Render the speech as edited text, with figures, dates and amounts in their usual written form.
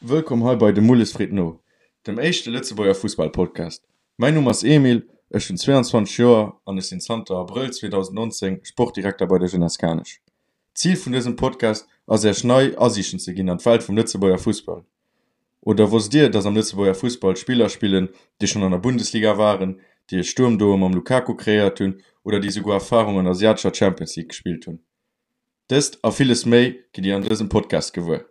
Wëllkomm hei bei De Mulles freet no, dem éischte Lëtzebuerger Fussball-Podcast. Mäin Numm ass Emil, ech hunn 22 Joer an ech sinn zanter Abrëll 2019 Sportdirekter bei der Jeunesse Kanech. D'Zil vun dësem Podcast ass Äech nei Asiichten ze ginn an d'Welt vum Lëtzebuerger Fussball. Oder wosst Dir, dass am Lëtzebuerger Fussball Spiller spillen, déi schonn an der Bundesliga waren, déi e Sturmduo mam Lukaku kreéiert hunn oder déi souguer Erfarung an der asiatescher Champions League gespillt hunn? Dëst a villes méi gitt Dir an dësem Podcast gewuer.